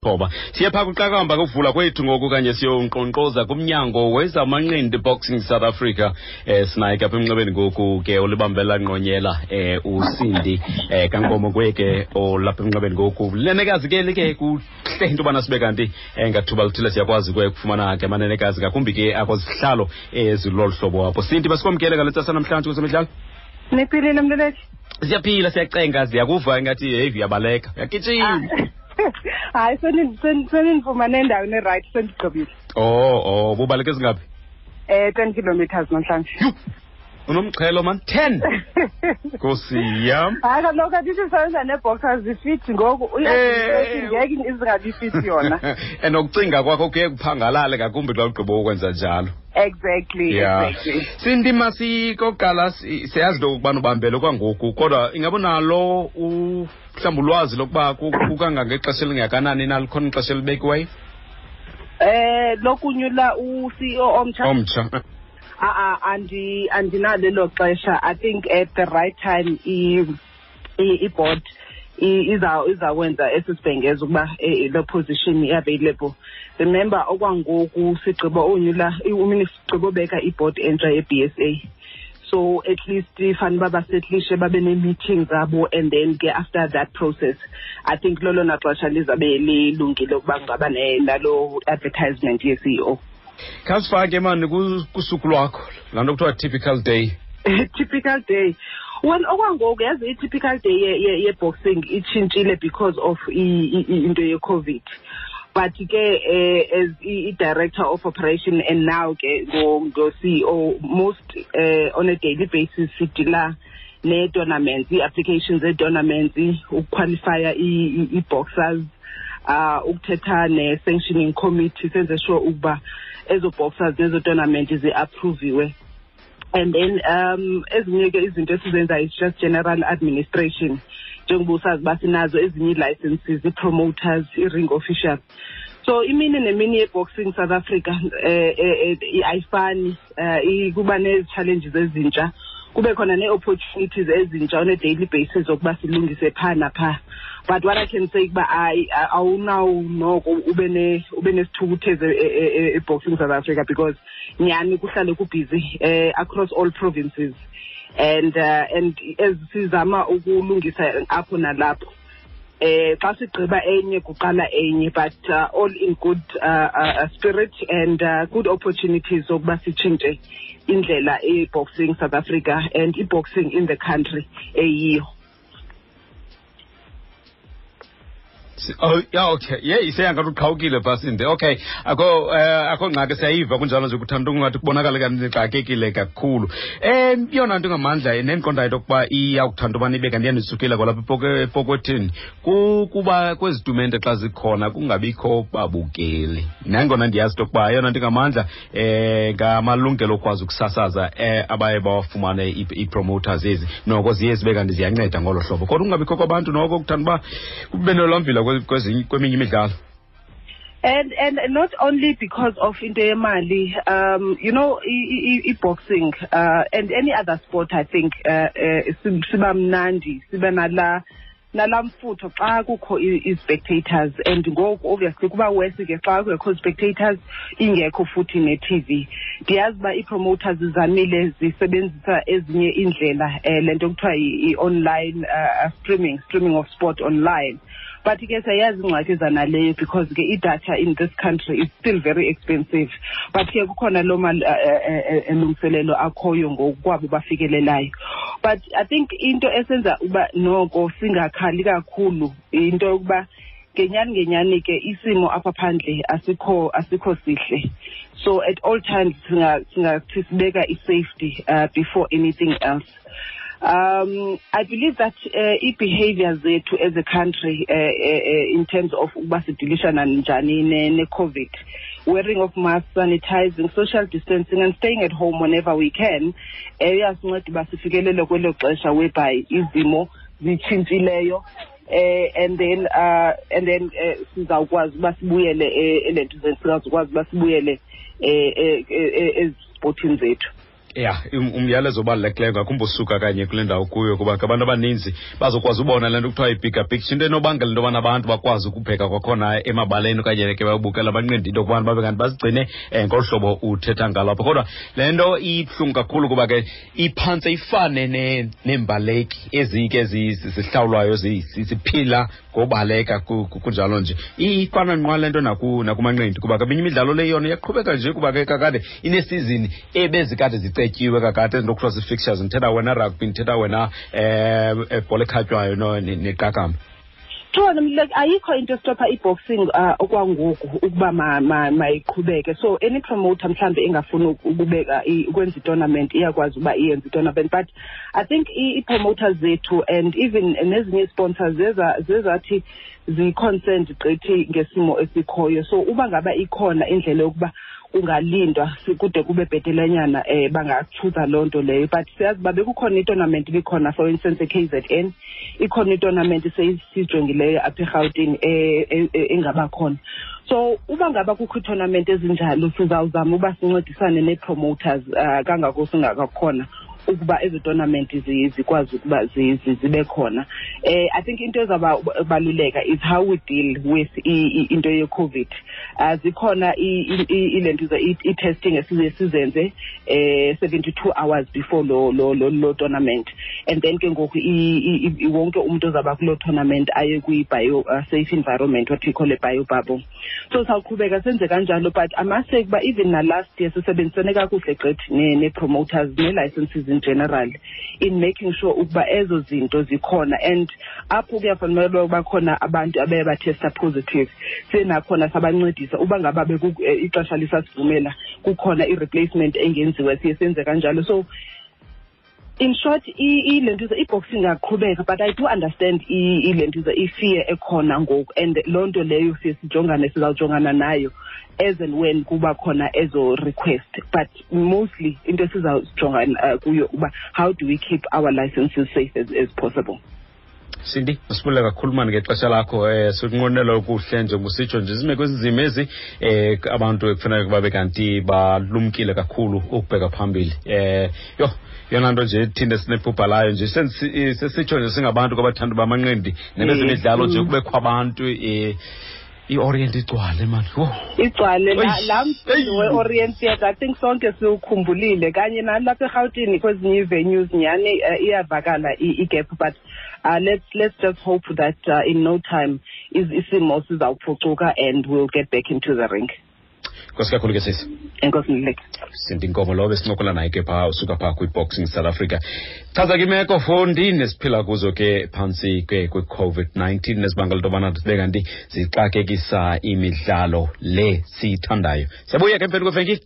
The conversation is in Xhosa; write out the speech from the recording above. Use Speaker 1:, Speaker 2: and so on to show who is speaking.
Speaker 1: ngethoba. Siye phaa kuqakamba kuvula kwethu ngoku kanye siyonkqonkqoza kumnyango wezamanqindi Boxing South Africa. Sinaye ke apha emnxebeni ngoku ke olibambela ngqonyela uSindi kaNkomo kuye ke olapha emnxebeni ngoku. Lenekazi ke like kuhle into yobana sibe kanti ngathuba lithile siyakwazi ke ukufumana ke amanenekazi ngakumbi ke akwazihlalo ezilolu hlobo apho. Sindi, basikwamkele ngale ntsasa namhlanje kwezemidlalo.
Speaker 2: Niphilile, mluleki?
Speaker 1: Siyaphila, siyacenga, siyakuva ingathi heyi uyabaleka, uyagijima.
Speaker 2: Hayi, senindifumane endaweni erayithi, sendigqibile.
Speaker 1: Oh, bubaleke ezingaphi?
Speaker 2: 10 kilometers namhlanje.
Speaker 1: Yhu, unomxhelo man, 10, nkosi yam.
Speaker 2: Hayi kaloku, andithi sisebenza nee-boxers zifit ngoku, ngeke izingabi fit yona.
Speaker 1: And ukucinga kwakho kuye kuphangalale ngakumbi xa ugqiba ukwenza njalo.
Speaker 2: Exactly.
Speaker 1: Exactly. Sindi, masikokuqala siyazi into okokubana ubambele kwangoku, kodwa ingaba unalo mhlawumbi ulwazi lokuba kukangangexesha elingakanani na, likhona ixesha elibekiweyo?
Speaker 2: Lokunyula u-CEO omtsha?
Speaker 1: Omtsha.
Speaker 2: A andinalo elo xesha. I think at the right time i-board izakwenza esi sibhengezo ukuba le position i-available. Remember, okwangoku sigqiba unyula, sigqiba ubeka i-board entsha ye-BSA, so at least fanele uba basetlishe, babe nee-meeting zabo, and then ke after that process, I think lolona xesha lizabe lilungile ukuba kungaba nalo advertisement ye-CEO.
Speaker 1: Khasifake mani kusuku lwakho, laa nto kuthiwa typical day.
Speaker 2: Typical day, well, okwangoku yazi i-typical day ye-boxing itshintshile because of into ye-COVID, but ke as i-director of operation and now ke ngo-CEO, most on a daily basis sidila nee-tournaments, ii-applications zee-tournaments, ukuqualifya ii-boxers, ukuthetha ne-sanctioning committee, senze sure ukuba ezo boxers nezo tournament zi-approviwe. And then ezinye ke izinto esizenzayo is just general administration, njengoba usazi uba sinazo ezinye ii-licenses, ii-promoters, i-ring official. So imini nemini ye-Boxing South Africa ayifani. Kuba nezi-challenges ezintsha, kube khona nee-opportunities ezintsha on a daily basis zokuba silungise phaa naphaa. But what I can say kuba awunawo noko ube nesithukuthezi e-Boxing South Africa, because nyhani kuhlale kubhizi across all provinces, and as sizama ukulungisa apho nalapho, xa sigqiba enye kuqala enye, but all in good spirit and good opportunities zokuba sitshintshe indlela i-Boxing South Africa and i-boxing in the country eyiyo.
Speaker 1: Oh yeah, okay, yeyi, seyangathi uqhawukile phaa, Sindi. Okay, akho ngxaki, siyayiva kunjalo nje, kuthanda ungathi kubonakala kanti nixakekile kakhulu. Yona nto ngamandla nendiqondayo into yokuba iyawukuthanda ubana ibe kanti iyandisukela kwalapha epokothini kukuba kwezi tumente xa zikhona kungabikho babukeli, nangona ndiyazi into yokuba eyona nto ngamandla ngamalungelo okwazi ukusasaza abaye bawafumane ii-promoters ezi, noko ziye zibe kanti ziyanceda ngolo hlobo, kodwa kungabikho kwabantu noko kuthanda uba kube nolwamvila kweminye imidlalo.
Speaker 2: And not only because of into yemali, i-boxing and any other sport, I think siba mnandi, siba nala mfutho xa kukho i-spectators, and ngoku obviously kuba worse ke xa kungekho spectators, ingekho futhi ne-TV. Ndiyazi uba ii-promoters zizamile, zisebenzisa ezinye iindlela, le nto kuthiwa i-online streaming of sport online, but ke siyayazi ingxaki zanaleyo, because ke idatha in this country is still very expensive. But ke kukhona loo malungiselelo akhoyo ngokwabo bafikelelayo. But I think into esenza uba noko singakhali kakhulu into yokuba ngenyani ngenyani ke isimo apha phandle asikho sihle, so at all times singathi sibeka i-safety before anything else. I believe that i-behavior zethu as a country in terms of ukuba sidilishana njani ne-COVID, wearing of masks, sanitizing, social distancing and staying at home whenever we can, iyasinceda uba sifikelele kwelo xesha whereby izimo zitshintshileyo, and then sizawukwazi uba sibuyele elentuzeni, sizawukwazi uba sibuyele ezipotini zethu.
Speaker 1: Ya, umyalezo obalulekileyo ngakumbi usuka kanye kule ndawo kuyo, kuba ke abantu abaninzi bazokwazi ubona le nto kuthiwa yi-bigger picture, into enobangela into yobana abantu bakwazi ukubheka kwakhona emabaleni okanye ke bayobukela abanqindi, into yokubana babe kanti bazigcine ngolu hlobo uthetha ngalo apha. Kodwa le nto ibuhlungu kakhulu kuba ke iphantse ifane neembaleki ezike zihlawulwayo, ziphila ngobaleka kunjalo nje. Ifana nqwa le nto nakumanqindi, kuba ke eminye imidlalo le yona iyaqhubeka nje, kuba ke kakade inesizini ebezikade zicetyiwe kakade, ezinto kuthiwa zii-fixtures. Ndithetha wena rugby, ndithetha wena ebhola ekhatywayo neqakamba.
Speaker 2: True, like ayikho into estopha i-boxing okwangoku ukuba mayiqhubeke. So any promoter mhlambe engafuni ukubeka ukwenza i-tournament iyakwazi uba iyenze i-tournament, but I think i-promoters zethu and even nezinye sponsors zezathi zi-concerned gqithi ngesimo esikhoyo. So uba ngaba ikhona indlela yokuba kungalindwa kude kube bhetelenyana, bangachuza loo nto leyo. But siyazi uba bekukhona i-tournament ibikhona, for instance e-KZN ikhona i-tournament sesiyijongileyo apha eRhawutini engabakhona. So uba ngaba kukho ii-tournament ezinjalo, sizawuzama uba sincedisane nee-promoters kangako singakakhona ukuba ezo tournament zikwazi ukuba zibe khona. I think into ezabaluleka is how we deal with into ye-COVID. Zikhona ile nto i-testing esize sizenze 72 hours before lo tournament, and then ke ngoku wonke umuntu ozaba kuloo tournament aye kwi-bio safe environment, what we call a bio bubble. So sawuqhubeka senze kanjalo, but I must say ukuba even na last year sisebenzisene kakuhle gqithi nee-promoters nee-licenses in general in making sure ukuba ezo zinto zikhona, and apho kuyafanele uba khona abantu abaye bathesta positive, siye nakhona sabancedisa. Uba ngaba ixesha lisasivumela, kukhona i-replacement engenziwa, siye senze kanjalo. So in short, ile nto i-boxing ingaqhubeka, but I do understand ile nto i-fear ekhona ngoku, and loo nto leyo siye sijongane, sizawujongana nayo as and when kuba khona ezo request. But mostly into esizawujonga kuyo uba how do we keep our licenses safe as possible.
Speaker 1: Cindy, masibulele kakhulu mani ngexesha lakho. Sikunqwenela okuhle, njengoba nje zimeko ezinzima ezi, abantu ekufuneka babe kanti balumkile kakhulu ukubheka phambili. Yho, yona nto nje thina sinephupha layo nje, sesitsho nje singabantu kwabathanda bamanqindi nebezemidlalo nje, kubekho abantu, i-Orient igcwale mani.
Speaker 2: Igcwale laa mcimbi we-Orient Theatre. I think sonke siwukhumbulile, kanye nalapha eRhawutini kwezinye ii-venues. Nyhani, iyavakala i-gap, but let's just hope that in no time isimo sizawuphucuka and we'll get back into the ring.
Speaker 1: Nkosi kakhulu ke, sisi.
Speaker 2: Enkosi, Mluleki.
Speaker 1: Cindy Nkomo lo besincokola naye ke phaa, usuka phaa kwi-Boxing South Africa. Chaza ke imeko fondini esiphila kuzo ke phantsi ke kwi-COVID-19 nezibangela into yobana sibe kanti zixakekisa imidlalo le siyithandayo. Siyabuya ke emveni kwevenkile.